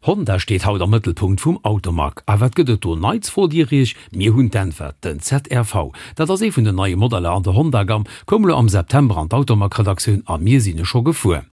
Honda steet haut am Mëttelpunkt vum Automag. A wat gëtt et do Neits, frot Dir Iech? Mir hunn d'Äntwert, den ZRV. Dat ass ee vun den neie Modeller an der Honda-Gamm, koum elo am September an d'Automag-Redaktioun a mir sinn e scho gefuer.